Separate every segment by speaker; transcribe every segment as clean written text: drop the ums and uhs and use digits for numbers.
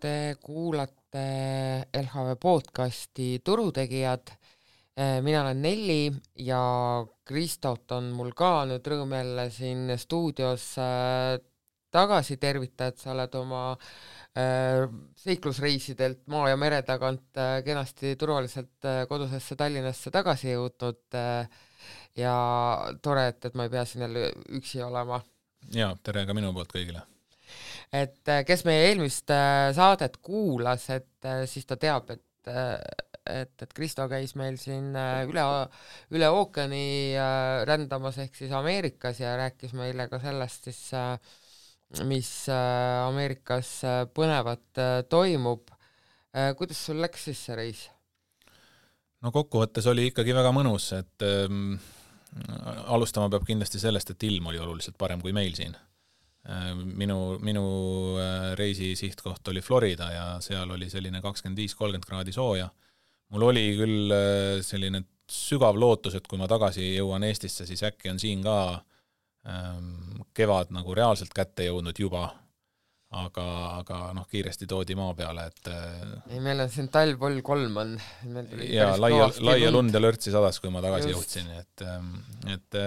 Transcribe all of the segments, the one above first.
Speaker 1: Te kuulate LHV podcasti Turutegijad. Mina olen Nelli ja Kristot on mul ka nüüd rõõm jälle siin stuudios tagasi tervita, et sa oled oma seiklusreisidelt maa ja mere tagant kenasti turvaliselt kodusesse Tallinnasse tagasi jõudnud ja tore, et ma ei pea siin jälle üksi olema.
Speaker 2: Ja, tere ka minu poolt kõigile.
Speaker 1: Et kes meie eelmist saadet kuulas, et siis ta teab, et Kristo käis meil siin üle ookeani rändamas ehk siis Ameerikas ja rääkis meile ka sellest siis, mis Ameerikas põnevat toimub. Kuidas sul läks siis see reis?
Speaker 2: No kokkuvõttes oli ikkagi väga mõnus, et alustama peab kindlasti sellest, et ilm oli oluliselt parem kui meil siin. Minu reisi sihtkoht oli Florida ja seal oli selline 25-30 kraadi sooja. Mul oli küll selline sügav lootus, et kui ma tagasi jõuan Eestisse, siis äkki on siin ka kevad nagu reaalselt kätte jõudnud juba, aga kiiresti toodi maa peale, et
Speaker 1: ei, meil on siin talv vol 3 on.
Speaker 2: Ja laia lund ja lörtsi sadas, kui ma tagasi jõudsin, et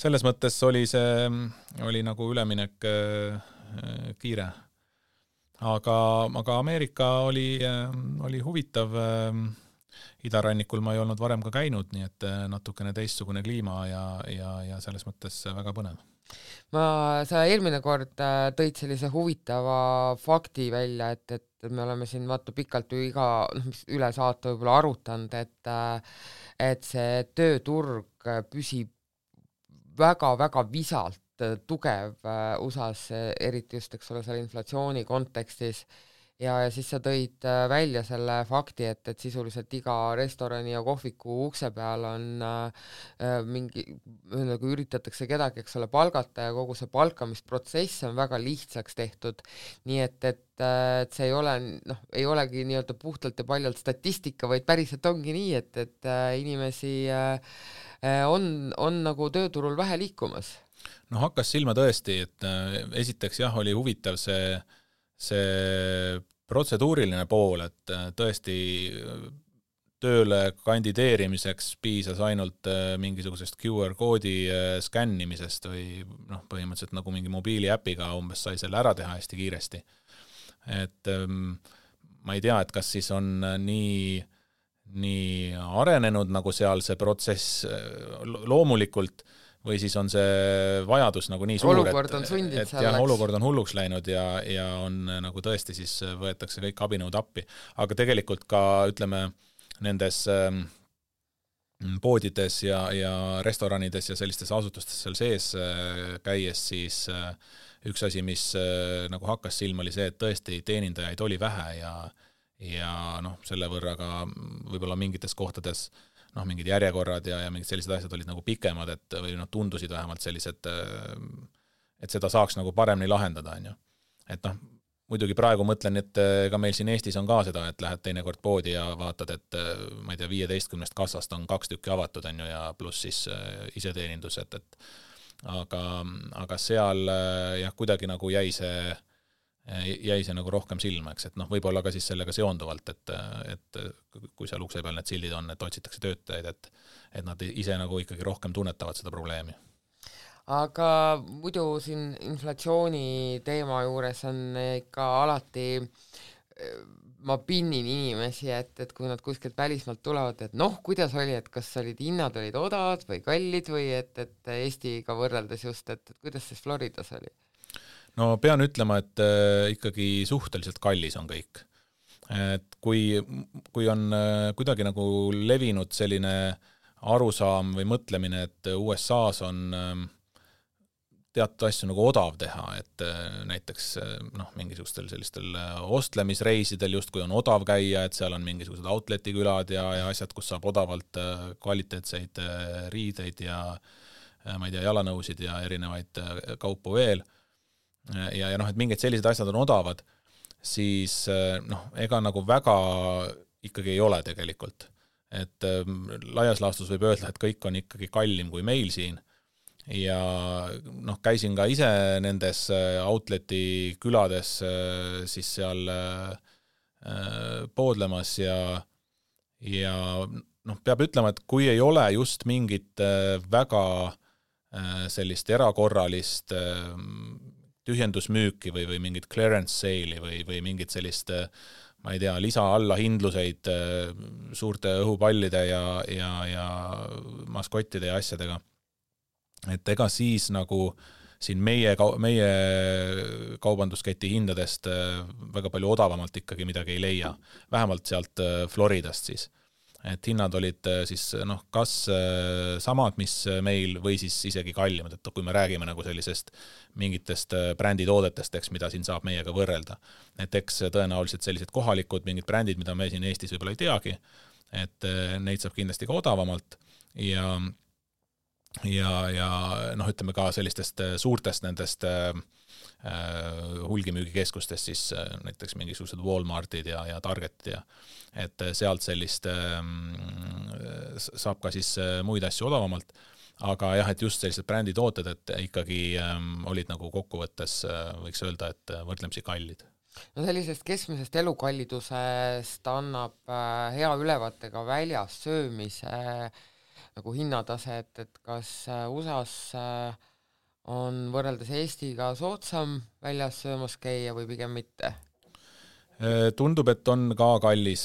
Speaker 2: selles mõttes oli see oli nagu üleminek kiire. Aga Ameerika oli huvitav. Idarannikul ma ei olnud varem ka käinud, nii et natukene teistsugune kliima ja selles mõttes väga põnev.
Speaker 1: Sa eelmine kord tõid sellise huvitava fakti välja, et me oleme siin pikalt ju üle saate võib-olla arutanud, et see tööturg püsib väga-väga visalt tugev USAs, eriti just, eks ole, selle inflatsiooni kontekstis. Ja siis sa tõid välja selle fakti, et sisuliselt iga restorani ja kohviku ukse peal on kui üritatakse kedagi, eks ole, palgata ja kogu see palkamisprotsess on väga lihtsaks tehtud. Nii et see ei olegi nii-öelda puhtalt ja paljalt statistika, vaid päriselt ongi nii, et inimesi on nagu tööturul vähe liikumas.
Speaker 2: No hakkas silma tõesti, et esiteks jah, oli huvitav see protseduuriline pool, et tõesti tööle kandideerimiseks piisas ainult mingisugusest QR-koodi skännimisest või põhimõtteliselt nagu mingi mobiiliäpiga umbes sai selle ära teha hästi kiiresti. Et ma ei tea, et kas siis on nii arenenud nagu seal see protsess loomulikult või siis on see vajadus nagu nii suur,
Speaker 1: olukord on sundid selleks.
Speaker 2: Olukord on hulluks läinud ja on nagu tõesti siis võetakse kõik abinõud appi. Aga tegelikult ka, ütleme, nendes poodides ja restoranides ja sellistes asutustes seal sees käies siis üks asi, mis nagu hakkas silma, oli see, et tõesti teenindajaid oli vähe ja selle võrra ka võib-olla mingites kohtades mingid järjekorrad ja mingid sellised asjad olid nagu pikemad, või tundusid vähemalt sellised, et seda saaks nagu paremini lahendada. Et muidugi praegu mõtlen, et ka meil siin Eestis on ka seda, et lähed teinekord poodi ja vaatad, et ma ei tea, 15 kassast on 2 tükki avatud ja pluss siis iseteenindus, aga seal jah, kuidagi nagu jäi see nagu rohkem silma, eks, et võib-olla ka siis sellega seonduvalt, et kui seal ukse peal need sildid on, et otsitakse töötajaid, et nad ise nagu ikkagi rohkem tunnetavad seda probleemi.
Speaker 1: Aga muidu siin inflatsiooni teema juures on ikka alati, ma pinnin inimesi, et kui nad kuskilt välismaalt tulevad, et kuidas oli, et kas hinnad olid odavad või kallid või et Eestiga võrreldes just, et kuidas siis Floridas oli?
Speaker 2: No pean ütlema, et ikkagi suhteliselt kallis on kõik. Et kui on kuidagi nagu levinud selline arusaam või mõtlemine, et USAs on teatud asju nagu odav teha, et näiteks mingisugustel sellistel ostlemisreisidel just kui on odav käia, et seal on mingisugused outletikülad ja asjad, kus saab odavalt kvaliteetseid riideid ja ma ei tea, jalanõusid ja erinevaid kaupu veel. Ja et mingid sellised asjad on odavad, siis ega nagu väga ikkagi ei ole tegelikult. Et laias laastus võib öelda, et kõik on ikkagi kallim kui meil siin, ja noh, käisin ka ise nendes outleti külades siis seal poodlemas ja noh, peab ütlema, et kui ei ole just mingit väga sellist erakorralist tühjendusmüüki või mingit clearance sale'i või mingit sellist ma ei tea, lisa alla hindluseid suurte õhupallide ja maskottide ja asjadega. Et ega siis nagu siin meie kaubandusketi hindadest väga palju odavamalt ikkagi midagi ei leia. Vähemalt sealt Floridast siis. Et hinnad olid siis noh, kas samad, mis meil või siis isegi kallimad, et kui me räägime nagu sellisest mingitest bränditoodetest, eks, mida siin saab meiega võrrelda. Et eks tõenäoliselt sellised kohalikud mingid brändid, mida me siin Eestis võib-olla ei teagi, et neid saab kindlasti ka odavamalt ja noh, ütleme ka sellistest suurtest nendest hulgimüügikeskustest siis näiteks mingisugused Walmartid ja Targetid ja et sealt sellist saab ka siis muid asju odavamalt, aga jah, et just sellised bränditooted, et ikkagi olid nagu kokkuvõttes võiks öelda, et võrdlemisi kallid.
Speaker 1: No sellisest keskmisest elukallidusest annab hea ülevaate ka väljas söömise nagu hinnatase, et kas USA-s on võrreldes Eestiga soodsam väljas söömas käia või pigem mitte?
Speaker 2: Tundub, et on ka kallis.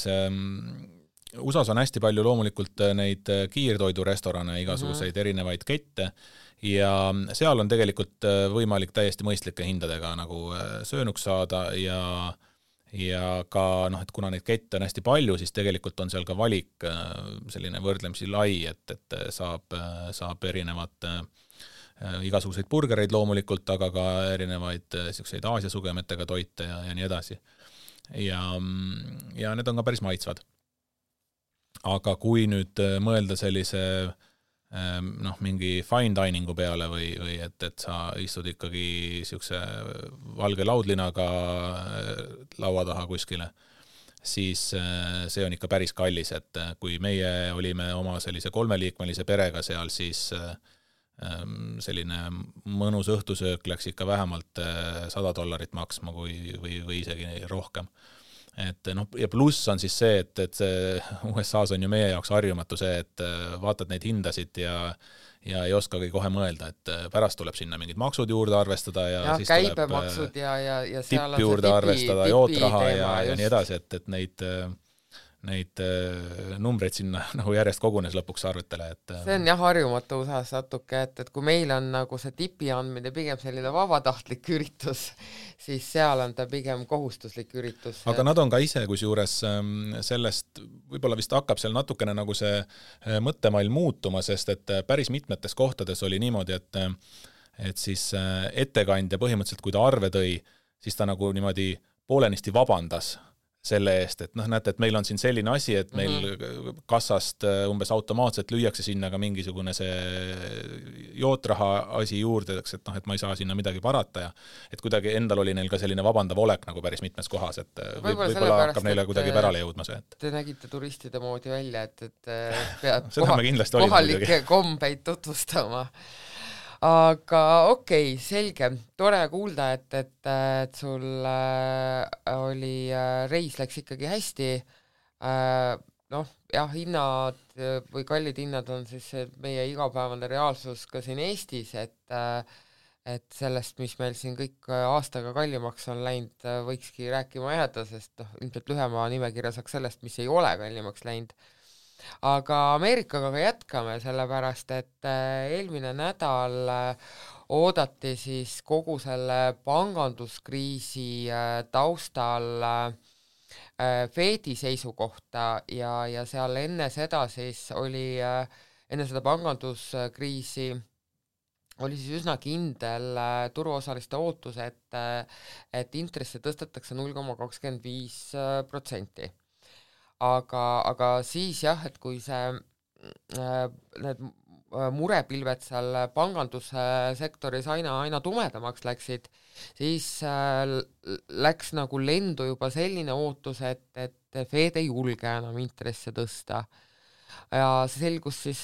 Speaker 2: USA-s on hästi palju loomulikult neid kiirtoidurestorane, igasuguseid erinevaid kette ja seal on tegelikult võimalik täiesti mõistlike hindadega nagu söönuks saada ja ka noh, et kuna neid kette on hästi palju, siis tegelikult on seal ka valik selline võrdlemisi lai, et saab erinevat igasuguseid burgereid loomulikult, aga ka erinevaid selliseid Aasia sugemetega toite ja nii edasi. Ja need on ka päris maitsvad. Aga kui nüüd mõelda sellise noh, mingi fine diningu peale või et sa istud ikkagi siukse valge laudlinaga laua taha kuskile, siis see on ikka päris kallis, et kui meie olime oma sellise 3-liikmelise perega seal, siis selline mõnus õhtusöök läks ikka vähemalt $100 maksma või isegi rohkem. Et noh, ja pluss on siis see, et see USA-s on ju meie jaoks harjumatu see, et vaatad neid hindasid ja ei oskagi kohe mõelda, et pärast tuleb sinna mingid maksud juurde arvestada ja siis
Speaker 1: käibemaksud
Speaker 2: tuleb
Speaker 1: ja
Speaker 2: tipp juurde arvestada, jootraha ja nii edasi, et neid numbreid sinna nagu järjest kogunes lõpuks arvetele.
Speaker 1: See on jah harjumatu USA-s natuke, et kui meil on nagu see tipi andmine pigem selline vabatahtlik üritus, siis seal on ta pigem kohustuslik üritus.
Speaker 2: Aga nad on ka ise kusjuures sellest, võib-olla vist hakkab seal natukene nagu see mõttemall muutuma, sest et päris mitmetes kohtades oli niimoodi, et siis ettekandja põhimõtteliselt, kui ta arve tõi, siis ta nagu niimoodi poolenisti vabandas selle eest, et noh, näete, et meil on siin selline asi, et meil kassast umbes automaatselt lüüakse sinna ka mingisugune see jootraha asi juurde, et noh, et ma ei saa sinna midagi parata ja et kuidagi endal oli neil ka selline vabandav olek nagu päris mitmes kohas, et võib-olla hakkab neile kuidagi pärale jõudma see.
Speaker 1: Te nägite turistide moodi välja, et pead
Speaker 2: kohalikke
Speaker 1: kombeid tutvustama. Aga okei, selge, tore kuulda, et sul oli reis läks ikkagi hästi. Noh, jah, hinnad või kallid hinnad on siis meie igapäevane reaalsus ka siin Eestis, et sellest, mis meil siin kõik aastaga kallimaks on läinud, võikski rääkima jääda, sest ilmselt lühema nimekirja saaks sellest, mis ei ole kallimaks läinud. Aga Ameerikaga ka jätkame, sellepärast, et eelmine nädal oodati siis kogu selle panganduskriisi taustal Fedi seisukohta ja seal enne seda siis oli, enne seda panganduskriisi oli siis üsna kindel turuosaliste ootus, et intresse tõstetakse 0,25%. Aga siis jah, et kui need murepilved seal pangandussektoris aina tumedamaks läksid, siis läks nagu lendu juba selline ootus, et Fed ei julge enam intresse tõsta. ja see selgus siis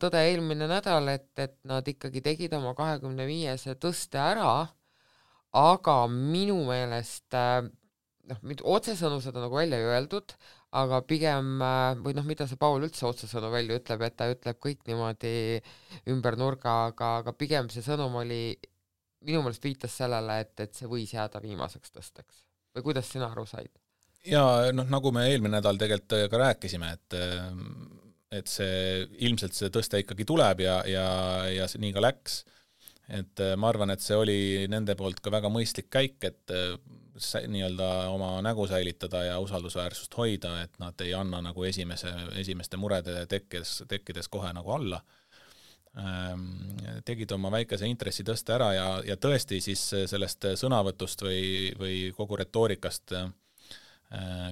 Speaker 1: tõde eelmine nädal, et nad ikkagi tegid oma 25 tõste ära, aga minu meelest otsesõnu seda nagu välja ei öeldud, aga pigem, või mida see Paul üldse otsesõnu välja ütleb, et ta ütleb kõik niimoodi ümber nurga, aga pigem see sõnum oli, minu meelest viitas sellele, et see võis jääda viimaseks tõsteks. Või kuidas sina aru said?
Speaker 2: Ja nagu me eelmine nädal tegelikult ka rääkisime, et see ilmselt see tõste ikkagi tuleb ja see nii ka läks. Et ma arvan, et see oli nende poolt ka väga mõistlik käik, et nii-öelda oma nägu säilitada ja usaldusväärsust hoida, et nad ei anna nagu esimeste murede tekkides kohe nagu alla. Tegid oma väikese intressitõste ära ja tõesti siis sellest sõnavõtust või kogu retoorikast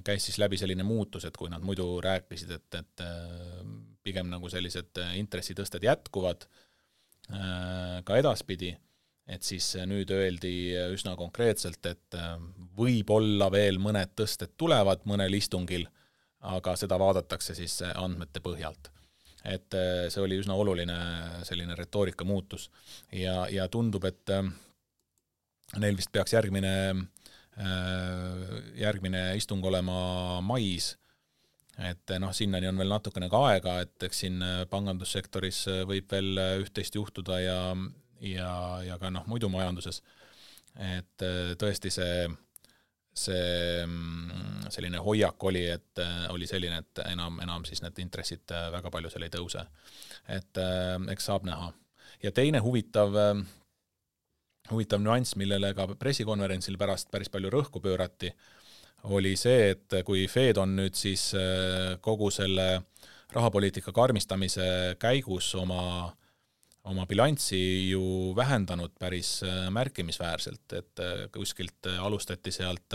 Speaker 2: käis siis läbi selline muutus, et kui nad muidu rääkisid, et pigem nagu sellised intressitõsted jätkuvad ka edaspidi, et siis nüüd öeldi üsna konkreetselt, et võib-olla veel mõned tõsted tulevad mõnel istungil, aga seda vaadatakse siis andmete põhjalt. Et see oli üsna oluline selline retoorika muutus ja tundub, et neil vist peaks järgmine istung olema mais, et sinnani on veel natukene ka aega, et eks siin pangandussektoris võib veel üht-teist juhtuda ja ka muidu majanduses, et tõesti see selline hoiak oli, et oli selline, et enam siis need intressid väga palju seal ei tõuse. Et eks saab näha. Ja teine huvitav nüanss, millele ka pressikonverentsil pärast päris palju rõhku pöörati, oli see, et kui Fed on nüüd siis kogu selle rahapoliitika karmistamise käigus oma bilanssi ju vähendanud päris märkimisväärselt, et kuskilt alustati sealt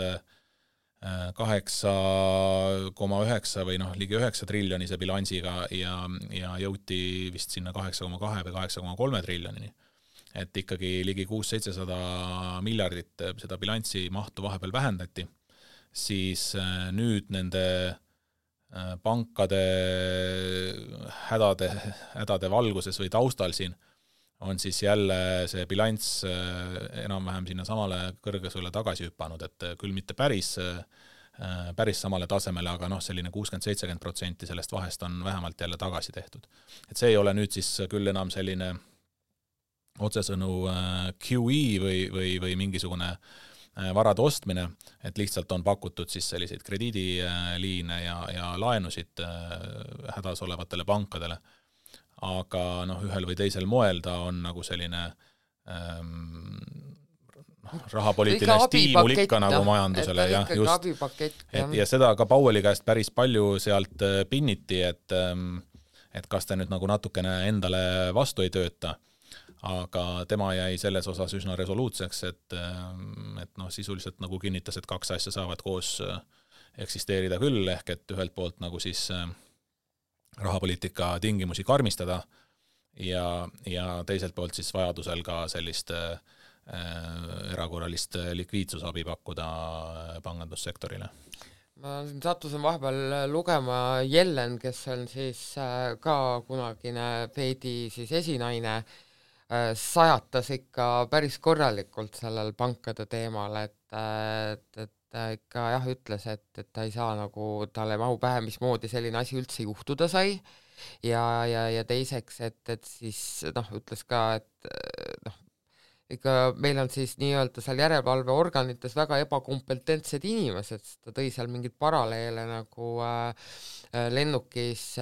Speaker 2: 8,9 või ligi 9 triljonise bilansiga ja jõuti vist sinna 8,2 või 8,3 triljonini. Et ikkagi ligi 600-700 miljardit seda bilanssi mahtu vahepeal vähendati, siis nüüd nende pankade hädade valguses või taustal siin on siis jälle see bilanss enam-vähem sinna samale kõrgusele tagasi hüppanud, et küll mitte päris samale tasemele, aga selline 60-70% sellest vahest on vähemalt jälle tagasi tehtud. Et see ei ole nüüd siis küll enam selline otsesõnu QE või mingisugune varade ostmine, et lihtsalt on pakutud siis selliseid krediidiliine ja laenusid hädas olevatele pankadele. Aga ühel või teisel moel ta on nagu selline rahapoliitiline stiimul ikka nagu majandusele. Ja seda ka Powelli käest päris palju sealt pinniti, et kas ta nüüd nagu natukene endale vastu ei tööta. Aga tema jäi selles osas üsna resoluutseks, et sisuliselt nagu kinnitas, et kaks asja saavad koos eksisteerida küll, ehk et ühelt poolt nagu siis rahapoliitika tingimusi karmistada ja teiselt poolt siis vajadusel ka sellist erakorralist likviidsusabi pakkuda pangandussektorile.
Speaker 1: Ma sattusin vahepeal lugema Yellen, kes on siis ka kunagine Fedi siis esinaine, sajatas ikka päris korralikult sellel pankade teemal, et ta ikka ütles, et ta ei saa nagu, talle mahu pähe, mismoodi selline asi üldse juhtuda sai ja teiseks, et siis ütles ka, et ikka meil on siis nii-öelda seal järelevalveorganites väga ebakompetentsed inimesed, ta tõi seal mingid paralleele nagu lennukis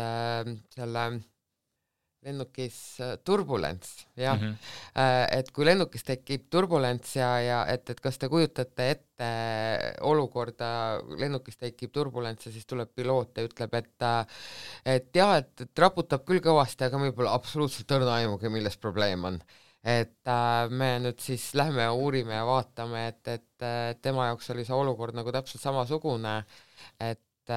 Speaker 1: turbulents, jah. Et kui lennukis tekib turbulents ja et kas te kujutate ette olukorda, lennukis tekib turbulents ja siis tuleb piloot ja ütleb, et jah, et raputab küll kõvasti, aga meil pole absoluutselt õrna aimugi, milles probleem on. Et me nüüd siis lähme ja uurime ja vaatame, et tema jaoks oli see olukord nagu täpselt samasugune, et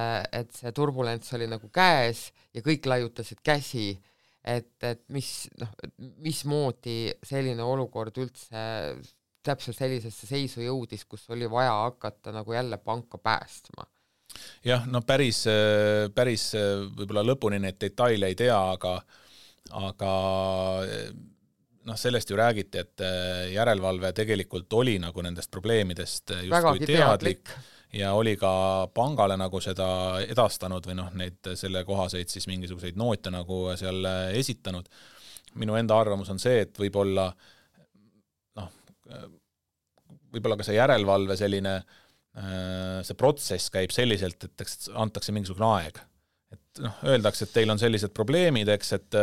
Speaker 1: see turbulents oli nagu käes ja kõik laiutasid käsi, et mismoodi selline olukord üldse täpselt sellisesse seisu jõudis, kus oli vaja hakata nagu jälle panka päästma.
Speaker 2: jah, no päris võib-olla lõpuni neid detaile ei tea, aga noh, sellest ju räägiti, et järelevalve tegelikult oli nagu nendest probleemidest justkui teadlik ja oli ka pangale nagu seda edastanud või noh, neid selle kohaseid siis mingisuguseid noote nagu seal esitanud. Minu enda arvamus on see, et võib-olla ka see järelevalve selline, see protsess käib selliselt, et antakse mingisugune aeg. Et öeldakse, et teil on sellised probleemid, eks, et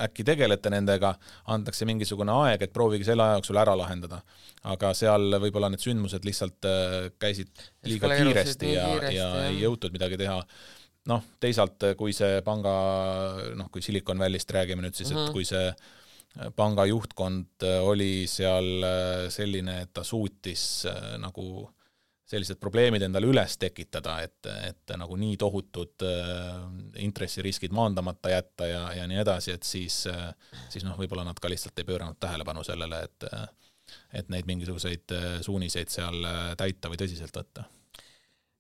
Speaker 2: äkki tegelete nendega, antakse mingisugune aeg, et proovige selle aja jooksul ära lahendada. Aga seal võib-olla need sündmused lihtsalt käisid liiga kiiresti ja ei jõutud midagi teha. Teisalt, kui see panga, kui Silicon Valley'st räägime nüüd siis, et kui see panga juhtkond oli seal selline, et ta suutis nagu sellised probleemid endale üles tekitada, et nagu nii tohutud intressiriskid maandamata jätta ja nii edasi, et siis võib-olla nad ka lihtsalt ei pööranud tähelepanu sellele, et neid mingisuguseid suuniseid seal täita või tõsiselt võtta.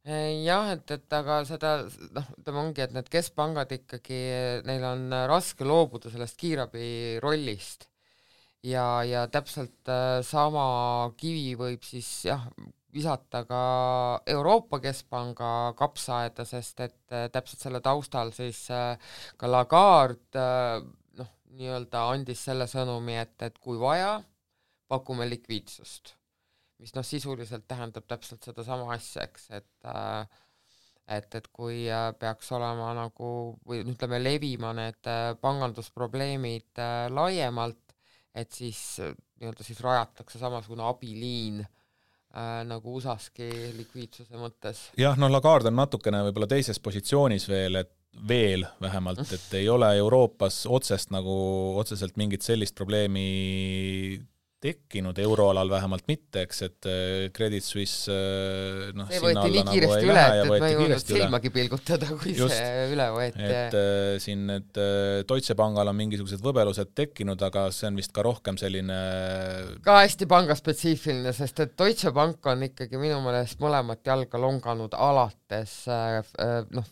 Speaker 1: Jah, et aga seda, ongi, et need keskpangad ikkagi, neil on raske loobuda sellest kiirabi rollist ja täpselt sama kivi võib siis visata ka Euroopa Keskpanga kapsaaeda, sest et täpselt selle taustal siis ka Lagarde nii-öelda andis selle sõnumi, et kui vaja, pakume likviidsust, mis sisuliselt tähendab täpselt seda sama asja, eks, et kui peaks olema nagu, või ütleme, levima need pangandusprobleemid laiemalt, et siis nii-öelda siis rajatakse samasugune abiliin nagu USAski likviidsuse mõttes.
Speaker 2: Jah, Lagarde on natukene võib-olla teises positsioonis veel vähemalt, et ei ole Euroopas otseselt mingit sellist probleemi tekkinud, euroalal vähemalt mitte, eks, et Credit Suisse
Speaker 1: see võeti nii kiiresti üle, et ma ei jõudnud silmagi pilgutada, kui just, see üle võeti.
Speaker 2: Et siin need Deutsche Pangal on mingisugused võbelused tekkinud, aga see on vist ka rohkem selline
Speaker 1: ka hästi pangaspetsiifiline, sest et Deutsche Bank on ikkagi minu meelest mõlemat jalga longanud alates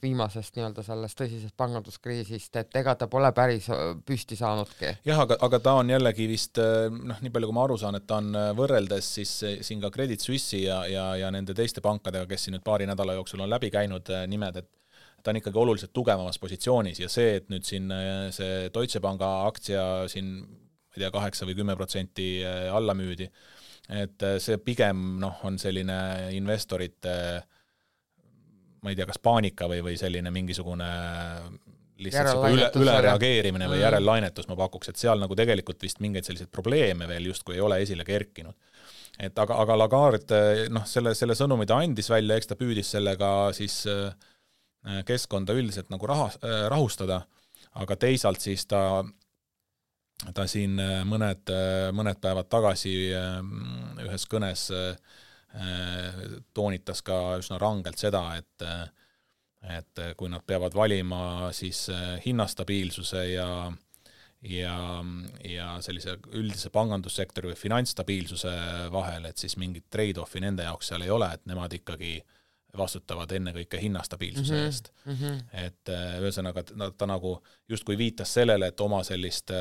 Speaker 1: viimasest nii-öelda sellest tõsisest panganduskriisist, et ega ta pole päris püsti saanudki.
Speaker 2: Jah, aga ta on jällegi vist nii palju kui ma aru saan, et ta on võrreldes siis siin ka Credit Suisse'i ja nende teiste pankadega, kes siin nüüd paari nädala jooksul on läbi käinud nimed, et ta on ikkagi oluliselt tugevamas positsioonis ja see, et nüüd siin see Deutsche Panga aktsia siin, ma ei tea, 8 või 10% alla müüdi, et see pigem on selline investorite, ma ei tea, kas paanika või selline mingisugune lihtsalt ülereageerimine või järellainetus ma pakuks, et seal nagu tegelikult vist mingeid selliseid probleeme veel justkui ei ole esile kerkinud. Et aga Lagarde, selle sõnumi ta andis välja, eks ta püüdis sellega siis keskkonda üldiselt nagu rahustada, aga teisalt siis ta siin mõned päevad tagasi ühes kõnes toonitas ka üsna rangelt seda, et kui nad peavad valima siis hinnastabiilsuse ja sellise üldise pangandussektori või finantsstabiilsuse vahel, et siis mingit trade-offi nende jaoks seal ei ole, et nemad ikkagi vastutavad ennekõike hinnastabiilsuse eest. Et ühesõnaga ta nagu justkui viitas sellele, et oma sellist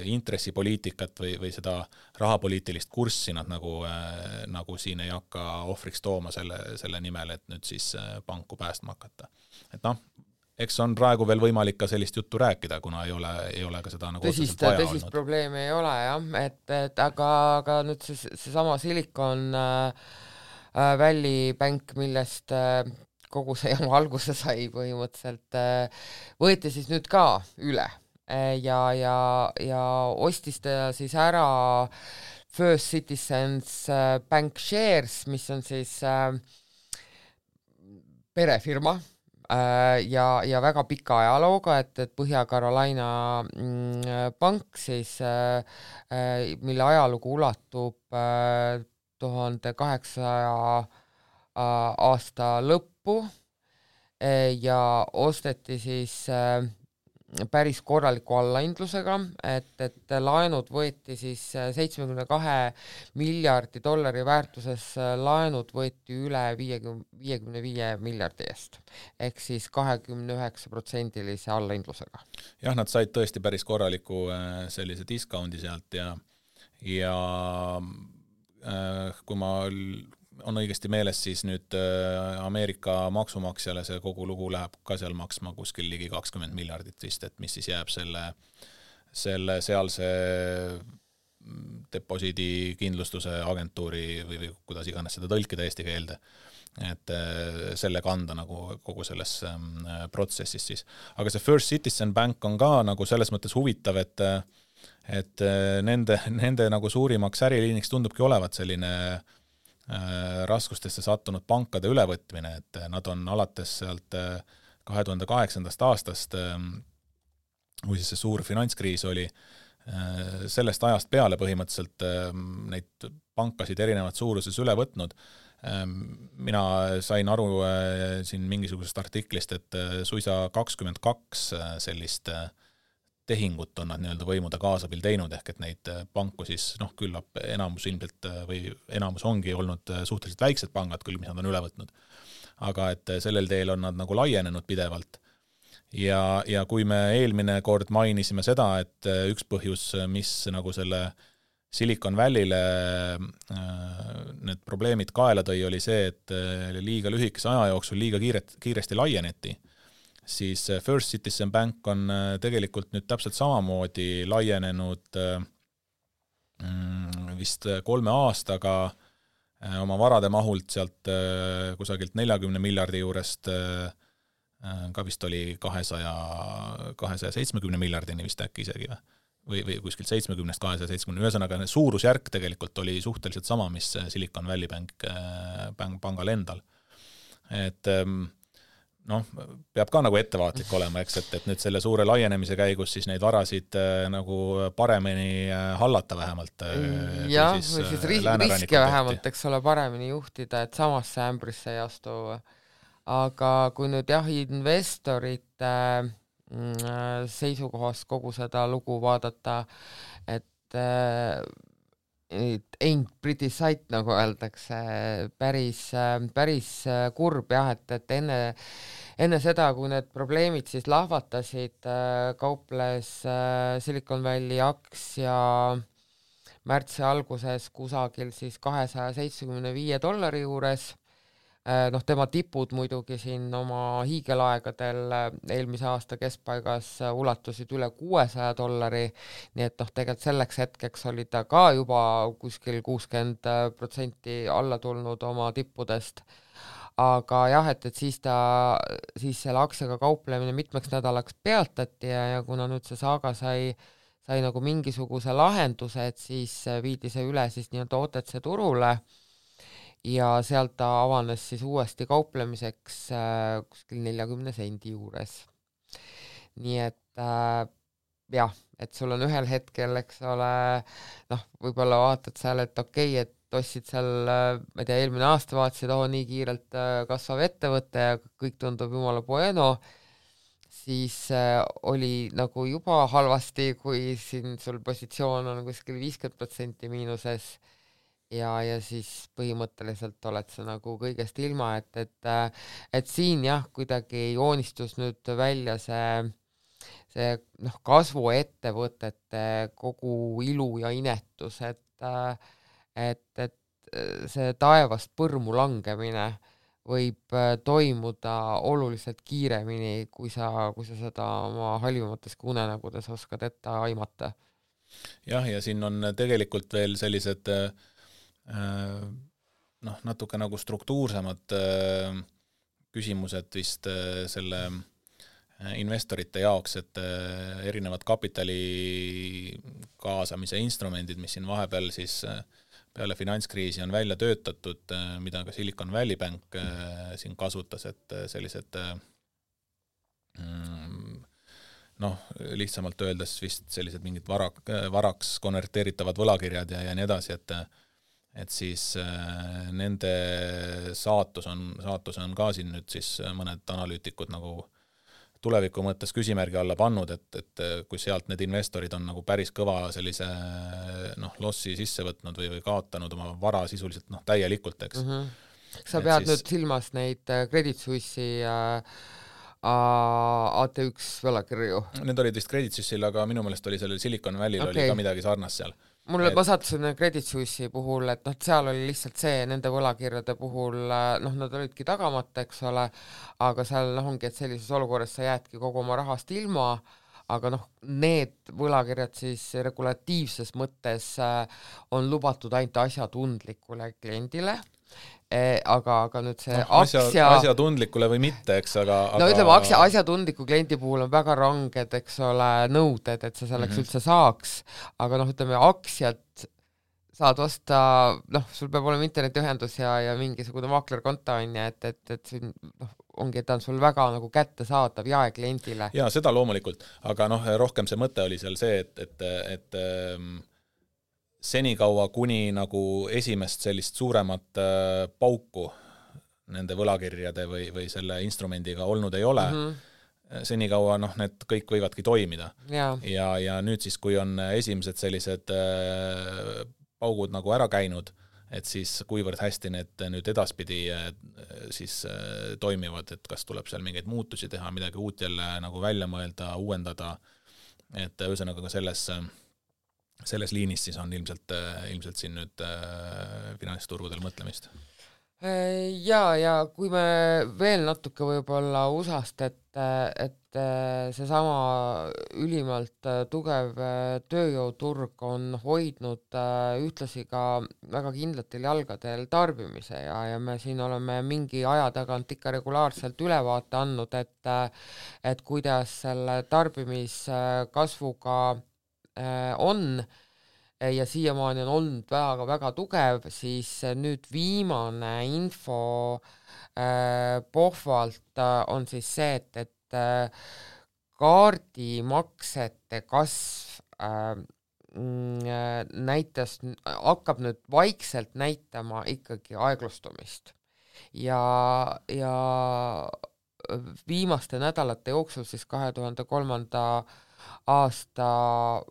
Speaker 2: intressipoliitikat või seda rahapoliitilist kurssi nad nagu siin ei hakka ohvriks tooma selle nimel, et nüüd siis panku päästma hakata. Et eks on praegu veel võimalik ka sellist juttu rääkida, kuna ei ole ka seda nagu
Speaker 1: tõsist probleemi ei ole, jah, et aga nüüd see sama Silicon Valley Bank, millest kogu see jama alguse sai põhimõtteliselt, võeti siis nüüd ka üle ja ostis ta siis ära First Citizens Bank Shares, mis on siis perefirma ja väga pika ajalooga, et Põhja-Carolina pank siis, mille ajalugu ulatub 1800 aasta lõppu ja osteti siis päris korraliku allahindlusega, et laenud võeti siis 72 miljardi dollari väärtuses laenud võeti üle 55 miljardi eest, ehk siis 29% allahindlusega.
Speaker 2: Jah, nad said tõesti päris korraliku sellise discoundi sealt ja kui ma on õigesti meeles, siis nüüd Ameerika maksumaksjale see kogu lugu läheb ka seal maksma kuskil ligi 20 miljardit vist, et mis siis jääb selle sealse deposiidi kindlustuse agentuuri või kuidas iganes seda tõlkida eesti keelde, et selle kanda nagu kogu selles protsessis siis. Aga see First Citizen Bank on ka nagu selles mõttes huvitav, et nende nagu suurimaks äriliiniks tundubki olevat selline raskustesse sattunud pankade ülevõtmine, et nad on alates sealt 2008. aastast, kui siis see suur finantskriis oli, sellest ajast peale põhimõtteliselt neid pankasid erinevat suuruses üle võtnud. Mina sain aru siin mingisugusest artiklist, et suisa 22 sellist tehingut on nad nii-öelda võimude kaasabil teinud, ehk et neid panku siis, küllap enamus ilmselt või enamus ongi olnud suhteliselt väiksed pangad küll, mis nad on üle võtnud. Aga et sellel teel on nad nagu laienenud pidevalt. Ja kui me eelmine kord mainisime seda, et üks põhjus, mis nagu selle Silicon Valley'le need probleemid kaela tõi, oli see, et liiga lühikese aja jooksul liiga kiiresti laieneti, siis First Citizen Bank on tegelikult nüüd täpselt samamoodi laienenud vist 3 aastaga oma varade mahult sealt kusagilt 40 miljardi juurest ka vist oli 270 miljardini vist äkki isegi või kuskilt 70-270, ühesõnaga suurusjärk tegelikult oli suhteliselt sama, mis Silicon Valley pangal endal. Et peab ka nagu ettevaatlik olema, eks, et nüüd selle suure laienemise käigus siis neid varasid nagu paremini hallata vähemalt.
Speaker 1: Jah, või siis riske vähemalt, eks ole, paremini juhtida, et samasse ämbrisse ei astu. Aga kui nüüd investorite seisukohast kogu seda lugu vaadata, et ain't pretty sight, nagu öeldakse, päris kurb jah, et enne seda, kui need probleemid siis lahvatasid, kauples Silicon Valley aktsia märtsi alguses kusagil siis $275 juures. Tema tipud muidugi siin oma hiigelaegadel eelmise aasta keskpaigas ulatusid üle $600, nii et tegelikult selleks hetkeks oli ta ka juba kuskil 60% alla tulnud oma tippudest. Aga jah, et siis selle aktsiaga kauplemine mitmeks nädalaks peatati ja kuna nüüd see saaga sai nagu mingisuguse lahenduse, et siis viidi see üle siis nii-öelda OTC turule ja sealt ta avanes siis uuesti kauplemiseks kuskil 40 sendi juures. Nii et jah, et sul on ühel hetkel, eks ole, võib-olla vaatad seal, et okei, et ostsid seal, ma ei tea, eelmine aasta vaatasid, nii kiirelt kasvav ettevõte ja kõik tundub jumala bueno, siis oli nagu juba halvasti, kui siin sul positsioon on kuskil 50% miinuses ja siis põhimõtteliselt oled sa nagu kõigest ilma, et siin jah, kuidagi joonistus nüüd välja see kasvuettevõtete kogu ilu ja inetus, et see taevast põrmu langemine võib toimuda oluliselt kiiremini, kui sa seda oma halvimates unenägudes oskad ette aimata.
Speaker 2: Jah, ja siin on tegelikult veel sellised natuke nagu struktuursemad küsimused vist selle investorite jaoks, et erinevad kapitali kaasamise instrumendid, mis siin vahepeal siis peale finantskriisi on välja töötatud, mida ka Silicon Valley Bank siin kasutas, et sellised lihtsamalt öeldes vist sellised mingid varaks konverteeritavad võlakirjad ja nii edasi, et siis nende saatus on ka siin nüüd siis mõned analüütikud nagu tuleviku mõttes küsimärgi alla pannud, et kui sealt need investorid on nagu päris kõva sellise lossi sisse võtnud või kaotanud oma vara sisuliselt täielikult, eks.
Speaker 1: Sa pead nüüd silmas neid Credit Suisse'i AT1 võlakirju?
Speaker 2: Need olid vist Credit Suisse'il, aga minu meelest oli sellel Silicon Valley'l oli ka midagi sarnast seal.
Speaker 1: Ma sattusin Credit Suisse'i puhul, et seal oli lihtsalt see, nende võlakirjade puhul, nad olidki tagamata, eks ole, aga seal ongi, et sellises olukorras sa jäädki kogu oma rahast ilma, aga need võlakirjad siis regulatiivses mõttes on lubatud ainult asjatundlikule kliendile, aga nüüd see
Speaker 2: asjatundlikule või mitte, eks, aga
Speaker 1: ütleme, asjatundliku kliendi puhul on väga ranged, eks ole, nõuded, et sa selleks üldse saaks, aga ütleme, aktsiad saad osta, sul peab olema internetiühendus ja mingisugune maaklerkonto on ja, et siin ongi, et ta on sul väga nagu kättesaadav jaekliendile.
Speaker 2: Jaa, seda loomulikult, aga rohkem see mõte oli seal see, et senikaua kuni nagu esimest sellist suuremat pauku nende võlakirjade või selle instrumendiga olnud ei ole, senikaua need kõik võivadki toimida. Ja nüüd siis, kui on esimesed sellised paugud nagu ära käinud, et siis kuivõrd hästi need nüüd edaspidi siis toimivad, et kas tuleb seal mingeid muutusi teha, midagi uut jälle nagu välja mõelda, uuendada, et ühesõnaga ka selles liinis siis on ilmselt siin nüüd finantsturgudel mõtlemist.
Speaker 1: Ja kui me veel natuke võib-olla USA-st, et seesama ülimalt tugev tööjõuturg on hoidnud ühtlasi ka väga kindlatel jalgadel tarbimise ja me siin oleme mingi aja tagant ikka regulaarselt ülevaate andnud, et kuidas selle tarbimiskasvuga on ja siiamaani on olnud väga tugev, siis nüüd viimane info pohvalt on siis see, et kaardimaksete kasv hakkab nüüd vaikselt näitama ikkagi aeglustumist ja viimaste nädalate jooksul siis 2003. aasta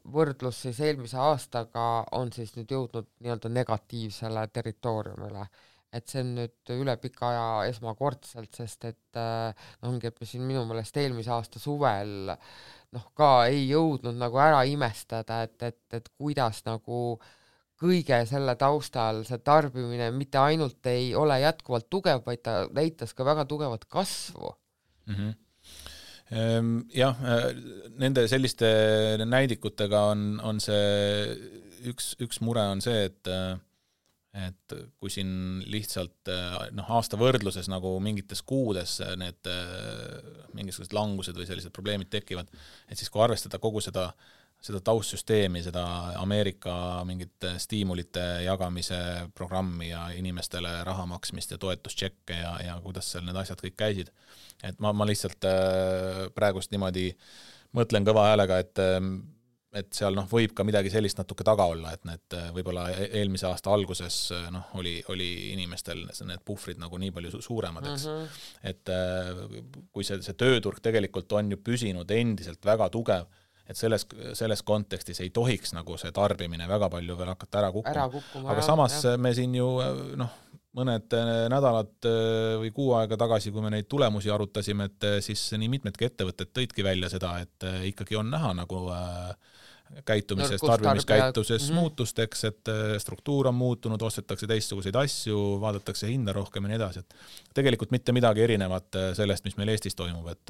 Speaker 1: võrdlus siis eelmise aastaga on siis nüüd jõudnud nii-öelda negatiivsele territooriumile. Et see on nüüd üle pika aja esmakordselt, sest et ongi, et me siin minu meelest eelmise aasta suvel ka ei jõudnud nagu ära imestada, et kuidas nagu kõige selle taustal see tarbimine mitte ainult ei ole jätkuvalt tugev, vaid ta näitas ka väga tugevat kasvu.
Speaker 2: Jah, nende selliste näidikutega on see üks mure on see, et kui siin lihtsalt aasta võrdluses nagu mingites kuudes need mingisugused langused või sellised probleemid tekivad, et siis kui arvestada kogu seda taustsüsteemi, seda Ameerika mingit stiimulite jagamise programmi ja inimestele raha maksmist ja toetustšekke ja kuidas seal need asjad kõik käisid, et ma lihtsalt praegust niimoodi mõtlen kõva häälega, et seal võib ka midagi sellist natuke taga olla, et need võib-olla eelmise aasta alguses oli inimestel need puhvrid nagu nii palju suuremad, eks. Et kui see tööturg tegelikult on ju püsinud endiselt väga tugev, et selles kontekstis ei tohiks nagu see tarbimine väga palju veel hakata ära kukkuma. Aga samas me siin ju mõned nädalad või kuu aega tagasi, kui me neid tulemusi arutasime, et siis nii mitmedki ettevõtted tõidki välja seda, et ikkagi on näha nagu käitumises, tarbimiskäituses muutusteks, et struktuur on muutunud, ostetakse teistsuguseid asju, vaadatakse hinda rohkem ja nii edasi, et tegelikult mitte midagi erinevat sellest, mis meil Eestis toimub, et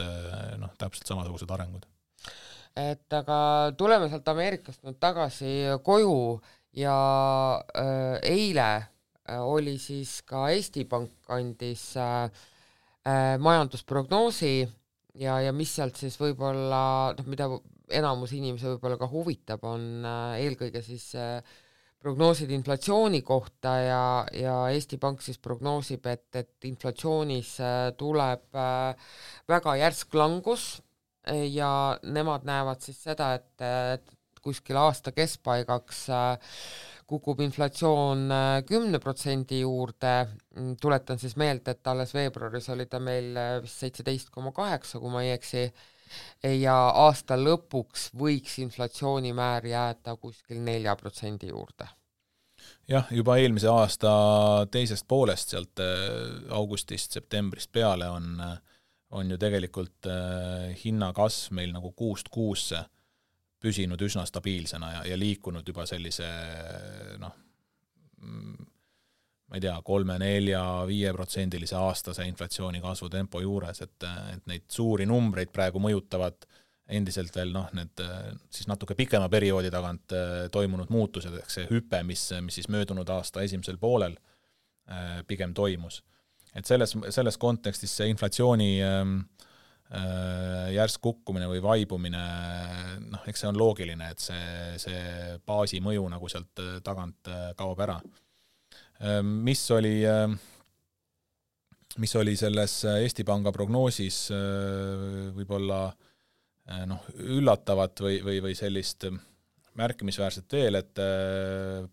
Speaker 2: täpselt samasugused arengud.
Speaker 1: Et aga tuleme sealt Ameerikast nüüd tagasi koju ja eile oli siis ka Eesti Pank andis majandusprognoosi ja mis sealt siis võib-olla, mida enamus inimesi võib-olla ka huvitab, on eelkõige siis prognoosid inflatsiooni kohta ja Eesti Pank siis prognoosib, et inflatsioonis tuleb väga järsk langus ja nemad näevad siis seda, et kuskil aasta keskpaigaks kukub inflatsioon 10% juurde, tuletan siis meelde, et alles veebruaris oli ta meil vist 17,8, kui ma ei eksi, ja aasta lõpuks võiks inflatsioonimäär jääda kuskil 4% juurde.
Speaker 2: Jah, juba eelmise aasta teisest poolest, sealt augustist, septembrist peale on ju tegelikult hinnakasv meil nagu kuust kuusse püsinud üsna stabiilsena ja liikunud juba sellise ma ei tea, 3, 4, 5% aastase inflatsiooni kasvu tempo juures, et neid suuri numbreid praegu mõjutavad endiselt veel need siis natuke pikema perioodi tagant toimunud muutused, ehk see hüpe, mis siis möödunud aasta esimesel poolel pigem toimus. Et selles kontekstis see inflatsiooni järsk kukkumine või vaibumine, eks see on loogiline, et see baasi mõju nagu sealt tagant kaob ära. Mis oli selles Eesti Panga prognoosis võib-olla üllatavat või sellist märkimisväärset veel, et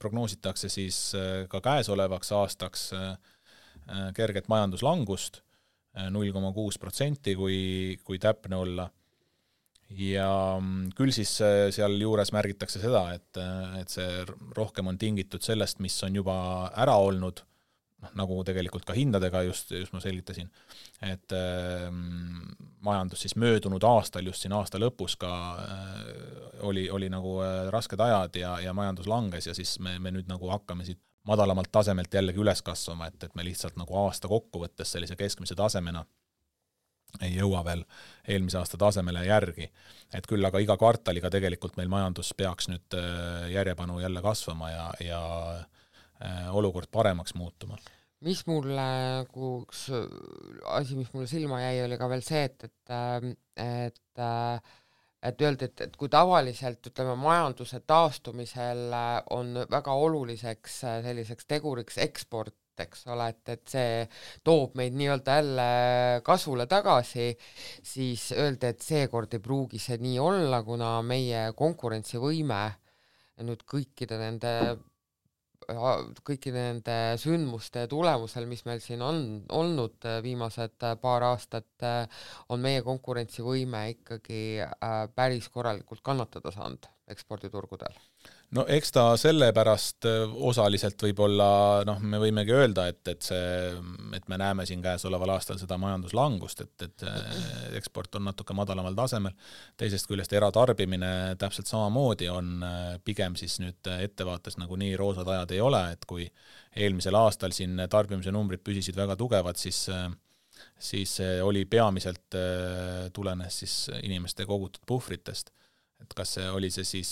Speaker 2: prognoositakse siis ka käesolevaks aastaks kerget majanduslangust, 0,6%, kui täpne olla. Ja küll siis seal juures märgitakse seda, et see rohkem on tingitud sellest, mis on juba ära olnud, nagu tegelikult ka hindadega just ma selgitasin, et majandus siis möödunud aastal, just siin aasta lõpus ka oli nagu rasked ajad ja majandus langes ja siis me nüüd nagu hakkame siit madalamalt tasemelt jällegi üles kasvama, et me lihtsalt nagu aasta kokkuvõttes sellise keskmise tasemena ei jõua veel eelmise aasta tasemele järgi. Et küll aga iga kvartaliga tegelikult meil majandus peaks nüüd järjepanu jälle kasvama ja olukord paremaks muutuma.
Speaker 1: Mis mulle, üks asi, mis mulle silma jäi, oli ka veel see, et öeldi, et kui tavaliselt, ütleme, majanduse taastumisel on väga oluliseks selliseks teguriks eksport, eks ole, et see toob meid nii-öelda jälle kasvule tagasi, siis öeldi, et seekord ei pruugi see nii olla, kuna meie konkurentsivõime nüüd kõikide nende sündmuste tulemusel, mis meil siin on olnud viimased paar aastat, on meie konkurentsivõime ikkagi päris korralikult kannatada saanud eksporditurgudel.
Speaker 2: No eks ta sellepärast osaliselt võib-olla, me võimegi öelda, et me näeme siin käesoleval aastal seda majanduslangust, et eksport on natuke madalamal tasemel. Teisest küljest eratarbimine täpselt samamoodi on pigem siis nüüd ettevaates nagu nii roosad ajad ei ole, et kui eelmisel aastal siin tarbimise numbrid püsisid väga tugevad, siis oli peamiselt tulenes siis inimeste kogutud puhvritest. Et kas see oli see siis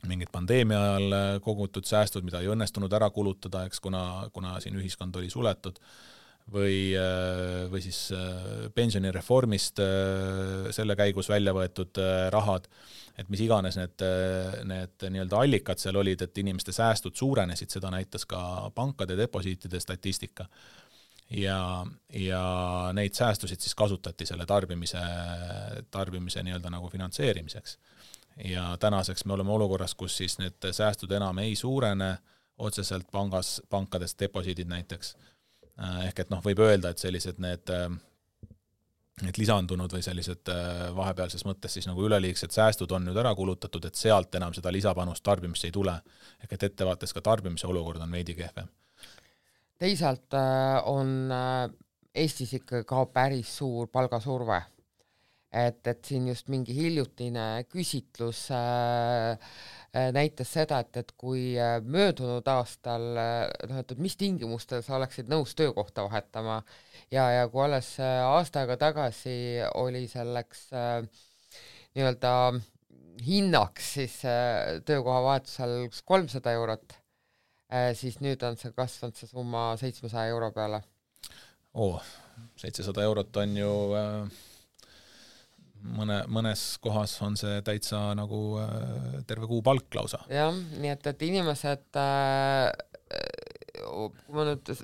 Speaker 2: mingid pandeemia ajal kogutud säästud, mida ei õnnestunud ära kulutada, eks kuna siin ühiskond oli suletud, või siis pensionireformist selle käigus välja võetud rahad, et mis iganes need nii-öelda allikad seal olid, et inimeste säästud suurenesid, seda näitas ka pankade deposiitide statistika. Ja neid säästusid siis kasutati selle tarbimise nii-öelda nagu finantseerimiseks. Ja tänaseks me oleme olukorras, kus siis need säästud enam ei suurene otseselt pankades deposiidid näiteks. Ehk et võib öelda, et sellised need lisandunud või sellised vahepealses mõttes siis nagu üleliigsed säästud on nüüd ära kulutatud, et sealt enam seda lisapanust tarbimisse ei tule. Ehk et ettevaates ka tarbimise olukord on veidi kehvem.
Speaker 1: Teisalt on Eestis ikka ka päris suur palgasurve. Et siin just mingi hiljutine küsitlus näitas seda, et kui möödunud aastal, et mis tingimustel sa oleksid nõus töökohta vahetama ja kui alles aasta aega tagasi oli selleks nii-öelda hinnaks siis töökoha vahetusel 300 €, siis nüüd on see kasvanud see summa 700 € peale.
Speaker 2: 700 € on ju mõnes kohas on see täitsa nagu terve kuu palk lausa.
Speaker 1: Jah, nii et inimesed,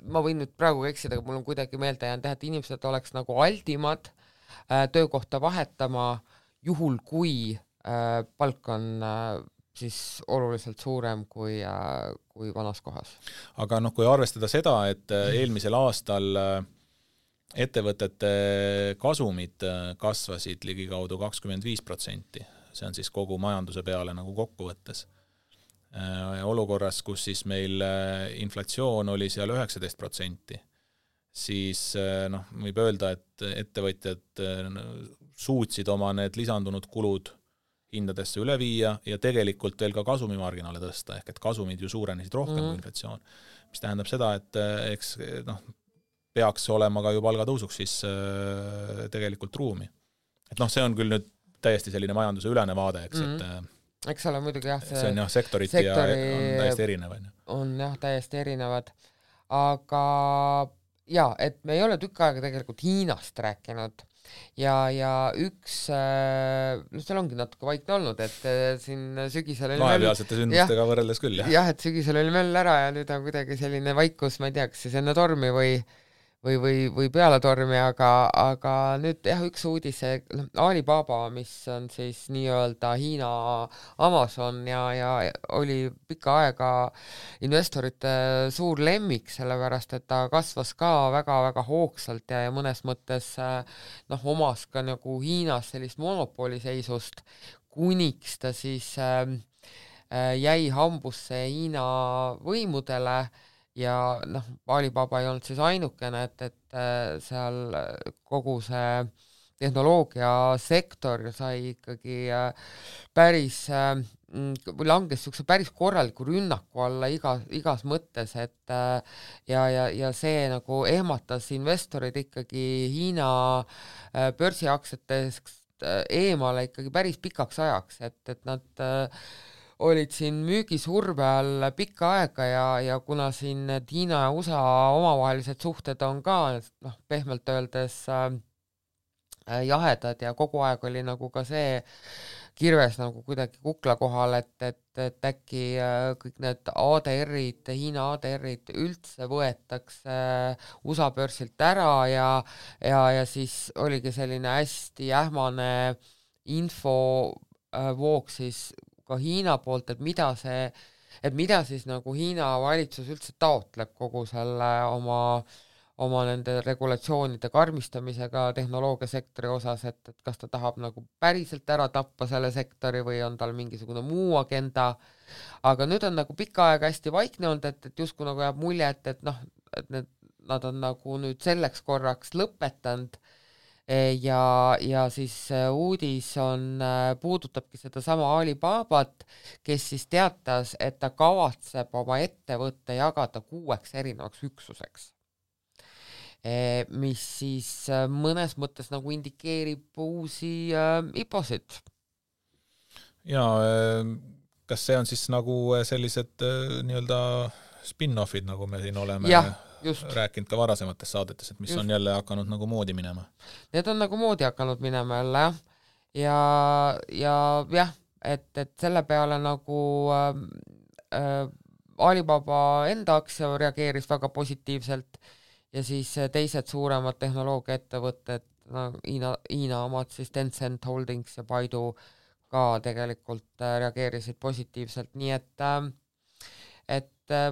Speaker 1: ma võin nüüd praegu eksida, aga mul on kuidagi meelde jäänud, et inimesed oleks nagu aldimad töökohta vahetama, juhul kui palk on siis oluliselt suurem kui vanas kohas.
Speaker 2: Aga kui arvestada seda, et eelmisel aastal ettevõtete kasumid kasvasid ligikaudu 25%, see on siis kogu majanduse peale nagu kokkuvõttes. Olukorras, kus siis meil inflatsioon oli seal 19%, siis võib öelda, et ettevõtjad suutsid oma need lisandunud kulud hindadesse üle viia ja tegelikult veel ka kasumimarginaale tõsta, ehk et kasumid ju suurenesid rohkem kui inflatsioon, mis tähendab seda, et eks peaks olema ka ju palgatõusuks siis tegelikult ruumi. Et see on küll nüüd täiesti selline majanduse ülene vaade, eks,
Speaker 1: eks ole muidugi jah,
Speaker 2: see on jah, sektoriti ja on täiesti erinev.
Speaker 1: On jah, täiesti erinevad, aga et me ei ole tükk aega tegelikult Hiinast rääkinud ja üks, seal ongi natuke vaikne olnud, et siin sügisel oli
Speaker 2: vahepealsete sündmustega võrreldes küll, jah.
Speaker 1: Jah, et sügisel oli möll ära ja nüüd on kuidagi selline vaikus, ma ei tea, kas siis enne tormi või peale tormi, aga nüüd jah, üks uudis, Alibaba, mis on siis nii-öelda Hiina Amazon ja oli pikka aega investorite suur lemmik, sellepärast et ta kasvas ka väga-väga hoogsalt ja mõnes mõttes omas ka nagu Hiinas sellist monopoliseisust, kuniks ta siis jäi hambusse Hiina võimudele. Ja Alibaba ei olnud siis ainukene, et seal kogu see tehnoloogiasektor sai ikkagi päris, langes niisuguse päris korraliku rünnaku alla igas mõttes, et ja see nagu ehmatas investorid ikkagi Hiina börsiaktsiatest eemale ikkagi päris pikaks ajaks, et nad olid siin müügisurve all pikka aega ja kuna siin Hiina ja USA omavahelised suhted on ka pehmelt öeldes jahedad ja kogu aeg oli nagu ka see kirves nagu kuidagi kukla kohal, et äkki kõik need ADR-id, Hiina ADR-id üldse võetakse USA börsilt ära ja siis oligi selline hästi ähmane infovoog siis ka Hiina poolt, et mida siis nagu Hiina valitsus üldse taotleb kogu selle oma nende regulatsioonide karmistamisega tehnoloogiasektori osas, et kas ta tahab nagu päriselt ära tappa selle sektori või on tal mingisugune muu agenda, aga nüüd on nagu pikka aega hästi vaikne olnud, et justkui nagu jääb mulje, et nad on nagu nüüd selleks korraks lõpetanud ja siis uudis puudutabki seda sama Alibabat, kes siis teatas, et ta kavatseb oma ettevõtte jagada 6 erinevaks üksuseks, mis siis mõnes mõttes nagu indikeerib uusi IPO-sid.
Speaker 2: Ja kas see on siis nagu sellised nii-öelda spin-offid, nagu me siin oleme rääkinud ka varasemates saadetes, et mis on jälle hakanud nagu moodi minema?
Speaker 1: Need on nagu moodi hakanud minema jälle, ja et selle peale nagu Alibaba enda aktsia reageeris väga positiivselt ja siis teised suuremad tehnoloogiaettevõtted, Hiina omad siis Tencent Holdings ja Baidu ka tegelikult reageerisid positiivselt, nii et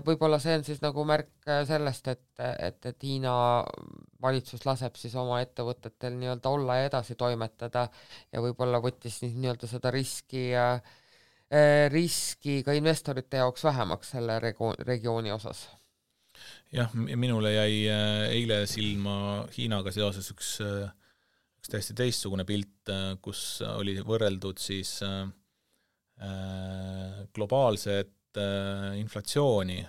Speaker 1: võib-olla see on siis nagu märk sellest, et Hiina valitsus laseb siis oma ettevõtetel nii-öelda olla ja edasi toimetada ja võib-olla võttis nii-öelda seda riski ka investorite jaoks vähemaks selle regiooni osas.
Speaker 2: Jah, minule jäi eile silma Hiinaga seoses üks täiesti teistsugune pilt, kus oli võrreldud siis globaalset inflatsiooni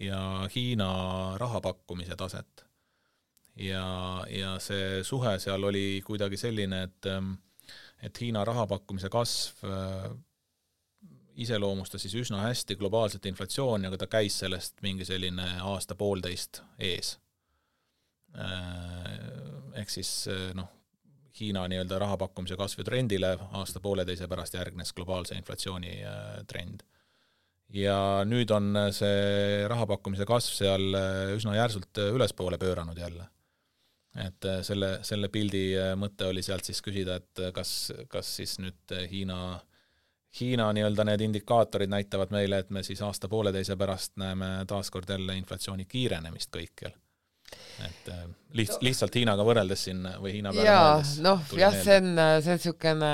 Speaker 2: ja Hiina rahapakkumise taset. Ja see suhe seal oli kuidagi selline, et Hiina rahapakkumise kasv iseloomustas siis üsna hästi globaalset inflatsiooni, aga ta käis sellest mingi selline aasta-poolteist ees. Ehk siis Hiina nii-öelda rahapakkumise kasvu trendile aasta-pooleteise pärast järgnes globaalse inflatsiooni trend. Ja nüüd on see rahapakkumise kasv seal üsna järsult ülespoole pööranud jälle. Et selle pildi mõte oli sealt siis küsida, et kas siis nüüd Hiina Hiina nii-öelda need indikaatorid näitavad meile, et me siis aasta-pooleteise pärast näeme taaskord jälle inflatsiooni kiirenemist kõikjal. Et lihtsalt Hiinaga võrreldes siin või Hiina peale mõeldes.
Speaker 1: Jah, see on niisugune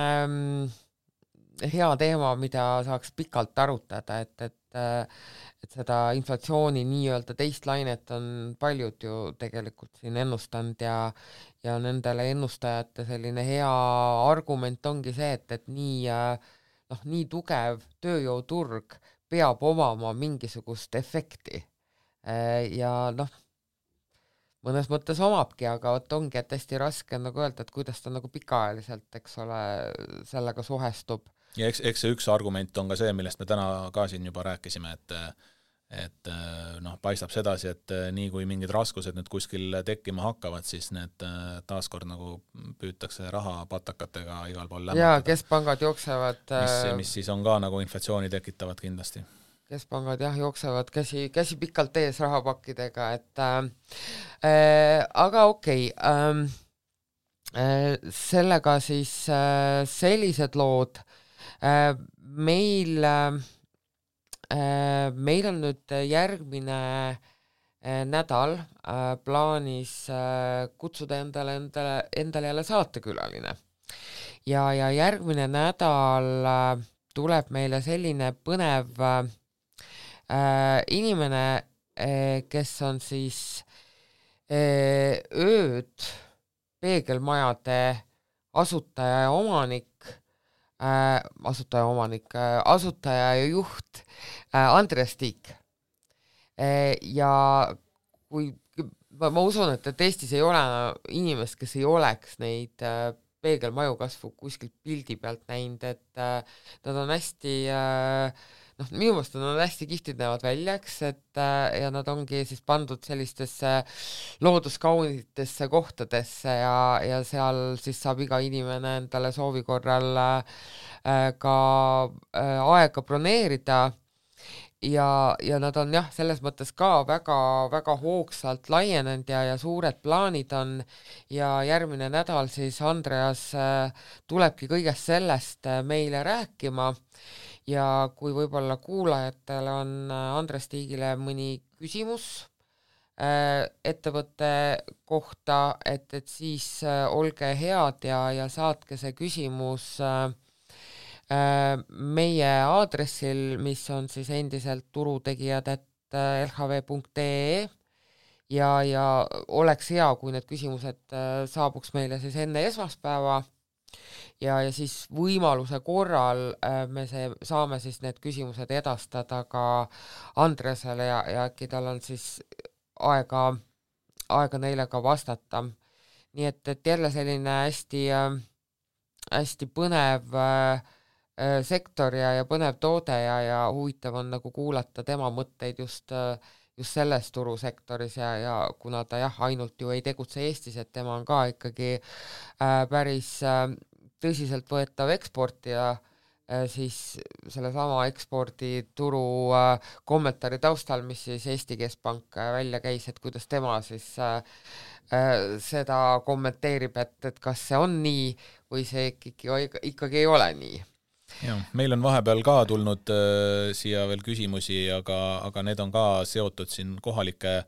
Speaker 1: hea teema, mida saaks pikalt arutada, et seda inflatsiooni nii-öelda teist lainet on paljud ju tegelikult siin ennustanud ja nendele ennustajate selline hea argument ongi see, et nii tugev tööjõuturg peab omama mingisugust efekti. Ja mõnes mõttes omabki, aga ongi, et hästi raske nagu öelda, et kuidas ta nagu pikaajaliselt, eks ole, sellega suhestub.
Speaker 2: Ja eks see üks argument on ka see, millest me täna ka siin juba rääkisime, et paistab sedasi, et nii kui mingid raskused nüüd kuskil tekkima hakkavad, siis need taaskord nagu püütakse rahapatakatega igal pool lämmatada.
Speaker 1: Ja keskpangad jooksevad
Speaker 2: mis siis on ka nagu inflatsiooni tekitavad kindlasti.
Speaker 1: Keskpangad jooksevad käsi pikalt ees rahapakkidega, aga okei. Sellega siis sellised lood. Meil on nüüd järgmine nädal plaanis kutsuda endale jälle saatekülaline. Ja järgmine nädal tuleb meile selline põnev inimene, kes on siis ööd peegelmajade asutaja ja juht Andres Tiik. Ja kui ma usun, et Eestis ei ole inimest, kes ei oleks neid peegelmaju kasvu kuskilt pildi pealt näinud, et nad on hästi minu meelest nad on hästi kihvtid näevad välja, ja nad ongi siis pandud sellistesse looduskaunitesse kohtadesse ja seal siis saab iga inimene endale soovi korral ka aega broneerida ja nad on selles mõttes ka väga, väga hoogsalt laienenud ja suured plaanid on ja järgmine nädal siis Andreas tulebki kõigest sellest meile rääkima. Ja kui võib-olla kuulajatel on Andres Tiigile mõni küsimus ettevõtte kohta, et siis olge head ja saatke see küsimus meie aadressil, mis on siis endiselt turutegijad@lhv.ee ja oleks hea, kui need küsimused saabuks meile siis enne esmaspäeva. Ja siis võimaluse korral me saame siis need küsimused edastada ka Andresele ja äkki tal on siis aega neile ka vastata. Nii et jälle selline hästi põnev sektor ja põnev toode ja huvitav on nagu kuulata tema mõtteid just selles turusektoris ja kuna ta ainult ju ei tegutse Eestis, et tema on ka ikkagi päris tõsiselt võetav eksportija, siis sellesama ekspordituru kommentaari taustal, mis siis Eesti Keskpank välja käis, et kuidas tema siis seda kommenteerib, et kas see on nii või see ikkagi ei ole nii.
Speaker 2: Ja, meil on vahepeal ka tulnud siia veel küsimusi, aga need on ka seotud siin kohalike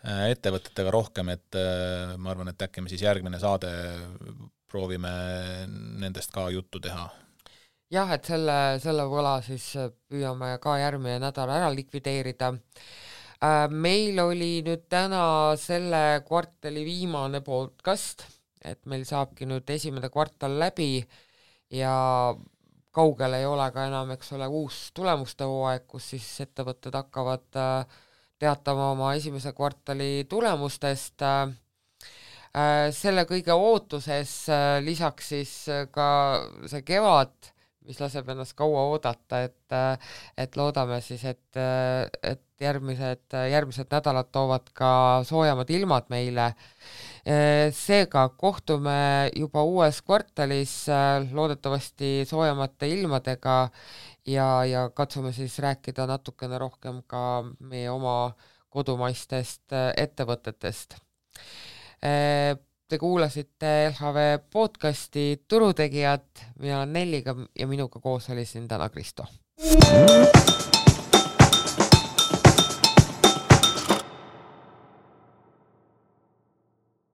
Speaker 2: ettevõtetega rohkem, et ma arvan, et äkki me siis järgmine saade proovime nendest ka juttu teha.
Speaker 1: Jah, et selle võla siis püüame ka järgmine nädal ära likvideerida. Meil oli nüüd täna selle kvartali viimane podcast, et meil saabki nüüd esimene kvartal läbi ja kaugel ei ole ka enam, eks ole, uus tulemuste hooaeg, kus siis ettevõtted hakkavad teatama oma esimese kvartali tulemustest. Selle kõige ootuses lisaks siis ka see kevad, mis laseb ennast kaua oodata, et loodame siis, et järgmised nädalad toovad ka soojamad ilmad meile. Seega kohtume juba uues kvartalis loodetavasti soojamate ilmadega ja katsume siis rääkida natukene rohkem ka meie oma kodumaistest ettevõtetest. Te kuulasite LHV podcasti Turutegijad, mina olen Nelliga ja minuga koos oli siin täna Kristo.